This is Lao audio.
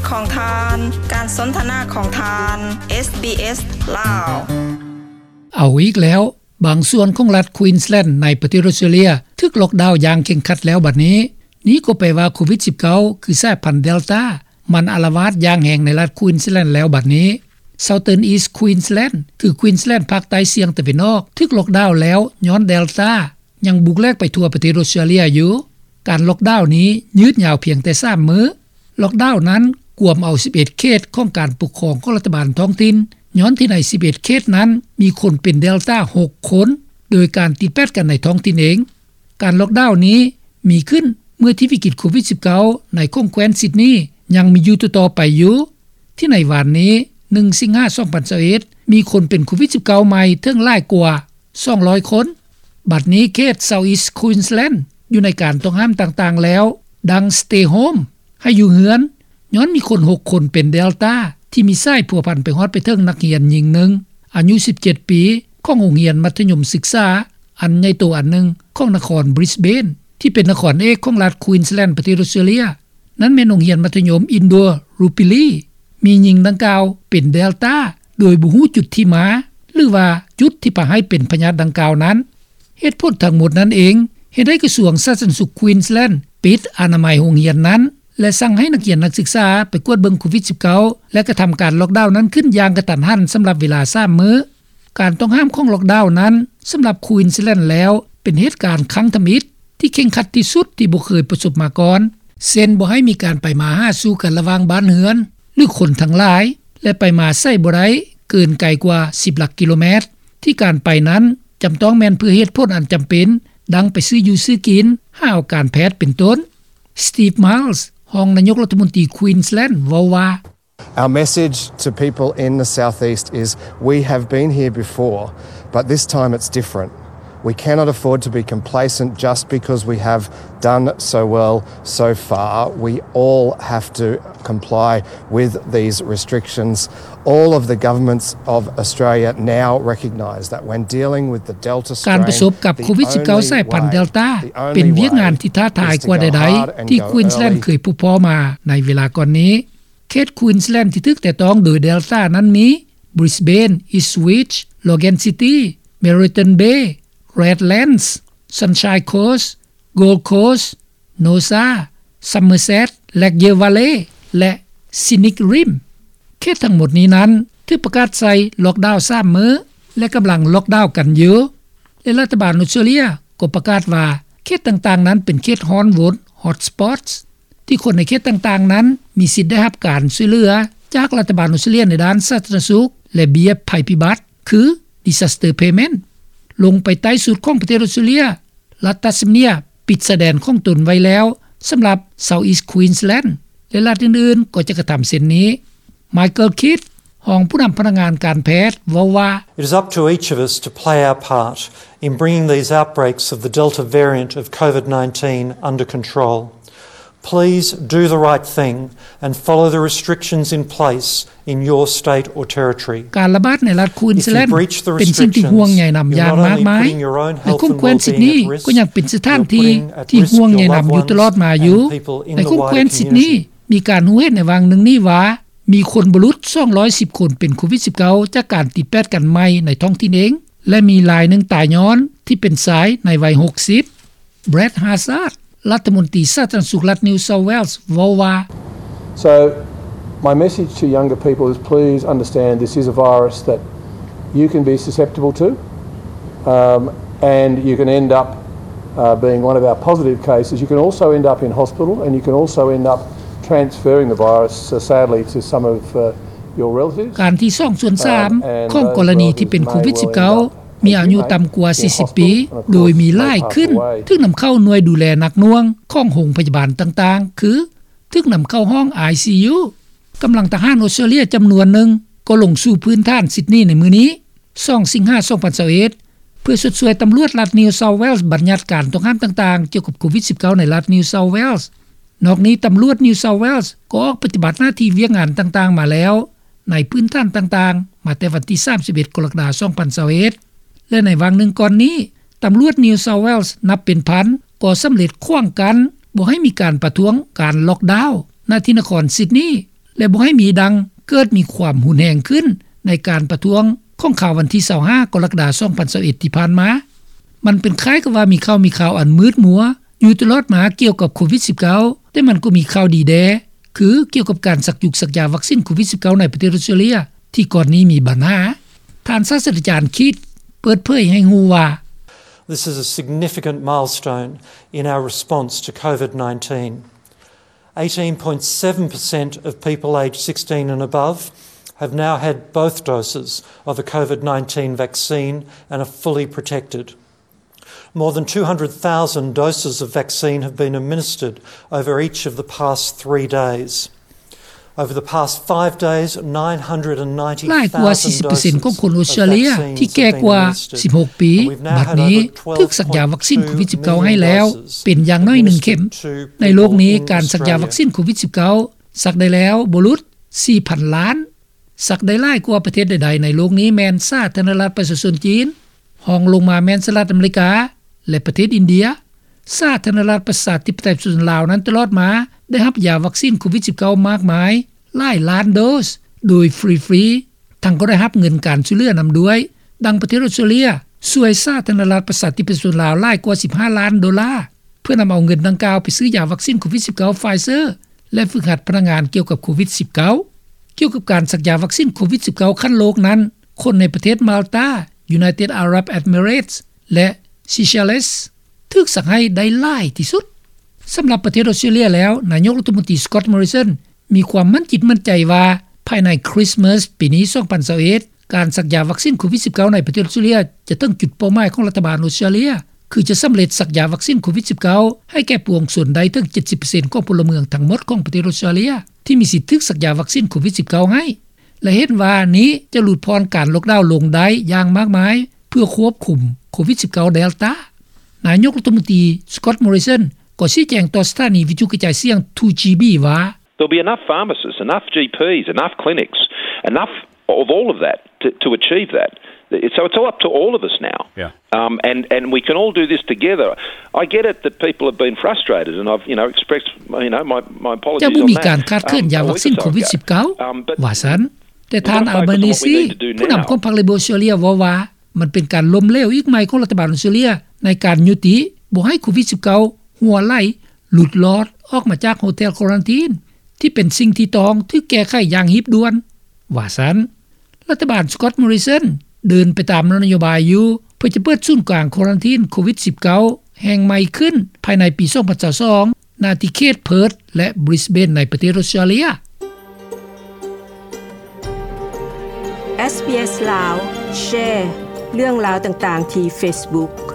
ຂອງທ່ານ ການສົນທະນາຂອງທ່ານ ເອສບີເອສ ລາວ. ເອົາອີກແລ້ວ, ບາງສ່ວນຂອງລັດ Queensland ໃນປະເທດອອສເຕຣເລຍ ຖືກລັອກດາວຢ່າງເຄັ່ງຄັດແລ້ວບັດນີ້. ນີ້ກໍແປວ່າໂຄວິດສິບເກົ້າ ຄືສາຍພັນ Delta ມັນອາລະວາດຢ່າງແຮງໃນລັດ Queensland ແລ້ວບັດນີ້. Southern East Queensland ຄື Queensland ພາກໃຕ້ສ່ຽງຕາເວັນອອກ ຖືກລັອກດາວແລ້ວຍ້ອນ Delta ຍັງບຸກແຫຼກໄປທົ່ວປະເທດອອສເຕຣເລຍຢູ່. ການລັອກດາວນີ້ຍືດຍາວພຽງແຕ່ສາມມື້. ລັອກດາວນັ້ນກວມເອົາສິບເອັດເຂດຂອງການປົກຄອງຂອງລັດຖະບານທ້ອງຖິ່ນ, ຍ້ອນທີ່ໃນສິບເອັດເຂດນັ້ນມີຄົນເປັນ Delta ຫົກຄົນ, ໂດຍການຕິດແປດກັນໃນທ້ອງຖິ່ນເອງ. ການລັອກດາວນີ້ມີຂຶ້ນເມື່ອທີ່ວິກິດໂຄວິດສິບເກົ້າ ໃນຂົງແຄວ້ນຊິດນີຍັງມີຢູ່ຕໍ່ໆໄປຢູ່. ທີ່ໃນວານນີ້ ໜຶ່ງ ສິງຫາ ສອງພັນຊາວເອັດ ມີຄົນເປັນໂຄວິດສິບເກົ້າໃໝ່ເຖິງຫຼາຍກວ່າສອງຮ້ອຍຄົນ. ບັດນີ້ເຂດ South East Queensland ຢູ່ໃນການຕ້ອງຫ້າມຕ່າງໆແລ້ວ, ດັ່ງ Stay Home ໃຫ້ຢູ່ເຮືອນ, ຍ້ອນມີຄົນຫົກຄົນເປັນ Delta ທີ່ມີສາຍພົວພັນໄປຮອດໄປເຖິງນັກຮຽນຍິງໜຶ່ງ ອາຍຸສິບເຈັດປີ ຂອງໂຮງຮຽນມັດທະຍົມສຶກສາອັນໃຫຍ່ໂຕອັນໜຶ່ງຂອງນະຄອນ Brisbane ທີ່ເປັນນະຄອນເອກຂອງລັດ Queensland ປະເທດອອສເຕຣເລຍ. ນັ້ນແມ່ນໂຮງຮຽນມັດທະຍົມ Indooroopilly. ມີຍິງດັ່ງກ່າວເປັນ Delta ໂດຍບໍ່ຮູ້ຈຸດທີ່ມາ ຫຼືວ່າຈຸດທີ່ພາໃຫ້ເປັນພະຍາດດັ່ງກ່າວນັ້ນ. ເຫດຜົນທັງໝົດນັ້ນເອງ ເຮັດໃຫ້ກະຊວງສາທາລະນະສຸກ Queensland ປິດອະນາໄມໂຮງຮຽນນັ້ນ ແລະ ສັ່ງໃຫ້ນັກຮຽນນັກສຶກສາໄປກວດເບິ່ງໂຄວິດສິບເກົ້າ ແລະ ກະທຳການລັອກດາວນັ້ນຂຶ້ນຢ່າງກະທັນຫັນສຳລັບເວລາສາມມື້. ການຕ້ອງຫ້າມຂອງລັອກດາວນັ້ນ ສຳລັບ Queensland ແລ້ວ ເປັນເຫດການຄັ້ງທຳອິດທີ່ເຄັ່ງຄັດທີ່ສຸດທີ່ບໍ່ເຄີຍປະສົບມາກ່ອນ, ເຊັ່ນ ບໍ່ໃຫ້ມີການໄປມາຫາສູ່ກັນລະຫວ່າງບ້ານເຮືອນ ຫຼື ຄົນທັງຫຼາຍ ແລະ ໄປມາໃສບໍ່ໄດ້ເກີນໄກກວ່າສິບຫຼັກກິໂລແມັດ, ທີ່ການໄປນັ້ນຈຳຕ້ອງແມ່ນເພື່ອເຫດຜົນອັນຈຳເປັນ ດັ່ງໄປຊື້ຢູ່ຊື້ກິນ, ຫາເອົາການແພດເປັນຕົ້ນ. Steve Miles ຮອງນາຍົກລັດຖະມົນຕີ Queensland ເວົ້າວ່າ Our message to people in the southeast is, we have been here before, but this time it's different. We cannot afford to be complacent just because we have done so well so far. We all have to comply with these restrictions. All of the governments of Australia now recognise that when dealing with the Delta strain, ການປະສົບກັບໂຄວິດສິບເກົ້າ ສາຍພັນ Delta ເປັນວຽກງານທີ່ທ້າທາຍກວ່າໃດໆ ທີ່ Queensland ເຄີຍພົບພໍ້ມາໃນເວລາກ່ອນນີ້. ເຂດ Queensland ທີ່ຖືກແຕະຕ້ອງໂດຍ Delta ນັ້ນມີ Brisbane, Ipswich, Logan City, Moreton Bay, Redlands, Sunshine Coast, Gold Coast, Noosa, Somerset, Lakeshore Valley ແລະ Scenic Rim. ເຂດທັງໝົດນີ້ນັ້ນຖືກປະກາດໃສ່ລັອກດາວສາມມື້ ແລະ ກຳລັງລັອກດາວກັນຢູ່ ແລະ ລັດຖະບານອອສເຕຣເລຍກໍປະກາດວ່າ ເຂດຕ່າງໆນັ້ນເປັນເຂດຮ້ອນວົນ Hotspots ທີ່ຄົນໃນເຂດຕ່າງໆນັ້ນມີສິດໄດ້ຮັບການຊ່ວຍເຫຼືອຈາກລັດຖະບານອອສເຕຣເລຍໃນດ້ານສາທາລະນະສຸກ ແລະ ເບ້ຍໄພພິບັດ ຄື Disaster Payment. ລົງໄປໃຕ້ສຸດຂອງປະເທດອອສເຕຣເລຍ, ລັດ Tasmania ປິດຊາຍແດນຂອງຕົນໄວ້ແລ້ວສຳລັບ South East Queensland ແລະ ລັດອື່ນໆກໍຈະກະທຳເຊັ່ນນີ້. Michael Kidd ຮອງຜູ້ນຳພະນັກງານການແພດເວົ້າວ່າ It is up to each of us to play our part in bringing these outbreaks of the Delta variant of COVID nineteen under control. Please do the right thing and follow the restrictions in place in your state or territory. ການລະບາດໃນລັດ Queensland ເປັນສິ່ງທີ່ຫ່ວງໃຍນຳຢ່າງມາກມາຍ ແລະ ຂົງແຄວ້ນຊິດນີກໍຍັງເປັນສະຖານທີ່ທີ່ຫ່ວງໃຍນຳຢູ່ຕະຫຼອດມາຢູ່. ໃນຂົງແຄວ້ນຊິດນີ ມີການຮູ້ເຫັນໃນຫວ່າງໜຶ່ງນີ້ວ່າ ມີຄົນບໍ່ຫຼຸດສອງຮ້ອຍສິບຄົນເປັນໂຄວິດສິບເກົ້າ ຈາກການຕິດແປດກັນໃໝ່ໃນທ້ອງຖິ່ນເອງ ແລະ ມີລາຍໜຶ່ງຕາຍຍ້ອນທີ່ເປັນຊາຍໃນໄວຫົກສິບ. Brad Hazzard ລັດຖະມົນຕີສາທາລະນະສຸກລັດ New South Wales ເວົ້າວ່າ So my message to younger people is, please understand this is a virus that you can be susceptible to, um, and you can end up, uh, being one of our positive cases. You can also end up in hospital, and you can also end up transferring the virus, uh, sadly, to some of, uh, your relatives. ການທີ່ສອງສ່ວນສາມຂອງກໍລະນີທີ່ເປັນໂຄວິດສິບເກົ້າ ມີອາຍຸຕ່ຳກວ່າສີ່ສິບປີ ໂດຍມີຫຼາຍຂຶ້ນ ຖືກນຳເຂົ້າໜ່ວຍດູແລໜັກໜ່ວງຂອງໂຮງພະຍາບານຕ່າງໆ ຄື ຖືກນຳເຂົ້າຫ້ອງ ICU. ກຳລັງທະຫານອອສເຕຣເລຍຈຳນວນໜຶ່ງກໍລົງສູ່ພື້ນຖານຊິດນີໃນມື້ນີ້ ສອງ ສິງຫາ ສອງພັນຊາວເອັດ ເພື່ອຊົດຊ່ວຍຕຳຫຼວດລັດ New South Wales ບັນຍັດການຕ້ອງຫ້າມຕ່າງໆກ່ຽວກັບໂຄວິດສິບເກົ້າ ໃນລັດ New South Wales. ນອກນີ້ ຕຳຫຼວດ New South Wales ກໍອອກປະຕິບັດໜ້າທີ່ວຽກງານຕ່າງໆມາແລ້ວ ໃນພື້ນຖານຕ່າງໆ ມາແຕ່ວັນທີສາມສິບເອັດ ກໍລະກະດາ ສອງພັນຊາວເອັດ ແລະ ໃນຫວ່າງໜຶ່ງກ່ອນນີ້ ຕຳຫຼວດ New South Wales ນັບເປັນພັນກໍສຳເລັດຂວາງກັ້ນບໍ່ໃຫ້ມີການປະທ້ວງການລັອກດາວ ນະທີ່ນະຄອນຊິດນີ ແລະບໍ່ໃຫ້ມີດັ່ງເກີດມີຄວາມຮຸນແຮງຂຶ້ນໃນການປະທ້ວງຂອງຄາວວັນທີຊາວຫ້າ ກໍລະກະດາ ສອງພັນຊາວເອັດ ທີ່ຜ່ານມາ. ມັນເປັນຄ້າຍກັບວ່າມີຂ່າວມີຄາວອັນມືດມົວຢູ່ຕະຫຼອດມາກ່ຽວກັບໂຄວິດ-19 ແຕ່ມັນກໍມີຂ່າວດີແດ່ ຄືກ່ຽວກັບການສັກຢຸກສັກຢາວັກຊີນໂຄວິດ-19 ໃນປະເທດອອສເຕຣເລັຽທີ່ກ່ອນນີ້ມີບັນຫາ. ທ່ານສາສດຕະຈານຄິດເປີດເຜີຍໃຫ້ຮູ້ວ່າ This is a significant milestone in our response to COVID nineteen. Eighteen point seven percent of people aged sixteen and above have now had both doses of a COVID nineteen vaccine and are fully protected. More than two hundred thousand doses of vaccine have been administered over each of the past three days. Over the past five days, nine hundred and ninety thousand doses of vaccine have been administered. ຫຼາຍກວ່າສີ່ສິບເປີເຊັນຂອງຄົນອອສເຕຣເລັຽທີ່ແກ່ກວ່າສິບຫົກປີ ບັດນີ້ຖືກສັກຢາວັກຊີນໂຄວິດ-19 ໃຫ້ແລ້ວເປັນຢ່າງໜ້ອຍໜຶ່ງເຂັມ. ໃນໂລກນີ້ ການສັກຢາວັກຊີນໂຄວິດ-19 ສັກໄດ້ແລ້ວບໍ່ຫຼຸດສີ່ພັນລ້ານ. ສັກໄດ້ຫຼາຍກວ່າປະເທດໃດໆໃນໂລກນີ້ແມ່ນສາທາລະນະລັດປະຊາຊົນຈີນ, ຮອງລົງມາແມ່ນສະຫະລັດອາເມລິກາ ແລະ ປະເທດອິນເດຍ. ສາທາລະນະລັດປະຊາທິປະໄຕປະຊາຊົນລາວນັ້ນຕະຫຼອດມາໄດ້ຮັບຢາວັກຊີນໂຄວິດ-19 ມາກມາຍຫຼາຍລ້ານໂດສໂດຍຟຣີໆ, ທັງກໍໄດ້ຮັບເງິນການຊ່ວຍເຫຼືອນຳດ້ວຍ. ດັ່ງປະເທດອອສເຕຣເລັຽຊ່ວຍສາທາລະນະລັດປະຊາທິປະໄຕປະຊາຊົນລາວຫຼາຍກວ່າສິບຫ້າລ້ານໂດລາ ເພື່ອນຳເອົາເງິນດັ່ງກ່າວໄປຊື້ຢາວັກຊີນໂຄວິດ-19 Pfizer ແລະ ຝຶກຫັດພະນັກງານກ່ຽວກັບໂຄວິດ-19. ກ່ຽວກັບການສັກຢາວັກຊີນໂຄວິດ-19 ຂັ້ນໂລກນັ້ນ, ຄົນໃນປະເທດມາລຕາ, United Arab Emirates ແລະ Seychelles ຖືກສັກໃຫ້ໄດ້ຫຼາຍທີ່ສຸດ. ສຳລັບປະເທດອອສເຕຣເລັຽແລ້ວ, ນາຍົກລັດຖະມົນຕີ Scott Morrison ມີຄວາມໝັ້ນຈິດໝັ້ນໃຈວ່າ ພາຍໃນຄຣິສມາສປີນີ້ ສອງພັນຊາວເອັດ ການສັກຢາວັກຊີນໂຄວິດ-19 ໃນປະເທດອອສເຕຣເລັຽຈະເຖິງຈຸດເປົ້າໝາຍຂອງລັດຖະບານອອສເຕຣເລັຽ ຄືຈະສຳເລັດສັກຢາວັກຊີນໂຄວິດ-19 ໃຫ້ແກ່ປວງຊົນໄດ້ເຖິງເຈັດສິບເປີເຊັນຂອງພົນລະເມືອງທັງໝົດຂອງປະເທດອອສເຕຣເລັຽທີ່ມີສິດຖືກສັກຢາວັກຊີນໂຄວິດ-19 ໃຫ້ ແລະ ເຫັນວ່ານີ້ຈະຫຼຸດຜ່ອນການລັອກດາວລົງໄດ້ຢ່າງມາກມາຍ ເພື່ອຄວບຄຸມໂຄວິດ-19 Delta. ນາຍົກລັດຖະມົນຕີ Scott Morrison ກໍຊີ້ແຈງຕໍ່ສະຖານີວິທະຍຸກະຈາຍສຽງ two G B ວ່າ There'll be enough pharmacists, enough G Ps, enough clinics, enough of all of that to, to achieve that. So it's all up to all of us now. Yeah. Um, and, and we can all do this together. I get it that people have been frustrated, and I've, you know, expressed, you know, my, my apologies on that. ຈະບໍ່ມີການຂາດເຂີນຢາວັກຊີນໂຄວິດ-19 ວ່າຊັ້ນ. ແຕ່ທ່ານ Albanese ຜູ້ນຳຂອງພັກ Labor ອອສເຕຣເລັຽ ເວົ້າວ່າ ມັນເປັນການລົ້ມເຫຼວອີກໃໝ່ຂອງລັດຖະບານອອສເຕຣເລັຽໃນການຍຸຕິບໍ່ໃຫ້ໂຄວິດ-19 ຮົ່ວໄຫຼ ຫຼຸດລອດອອກມາຈາກໂຮເທລຄວາຣັນທີນ ທີ່ເປັນສິ່ງທີ່ຕ້ອງຖືກແກ້ໄຂຢ່າງຮີບດ່ວນ ວ່າຊັ້ນ. ລັດຖະບານ Scott Morrison ເດີນໄປຕາມນະໂຍບາຍຢູ່ ເພື່ອຈະເປີດສູນກາງຄວາຣັນທີນໂຄວິດ-19 ແຫ່ງໃໝ່ຂຶ້ນພາຍໃນປີ ສອງພັນຊາວສອງ ນາທີ່ເຂດ Perth ແລະ Brisbane ໃນປະເທດອອສເຕຣເລັຽ. SBS ລາວ ແຊເລື່ອງລາວຕ່າງໆທີ່ Facebook.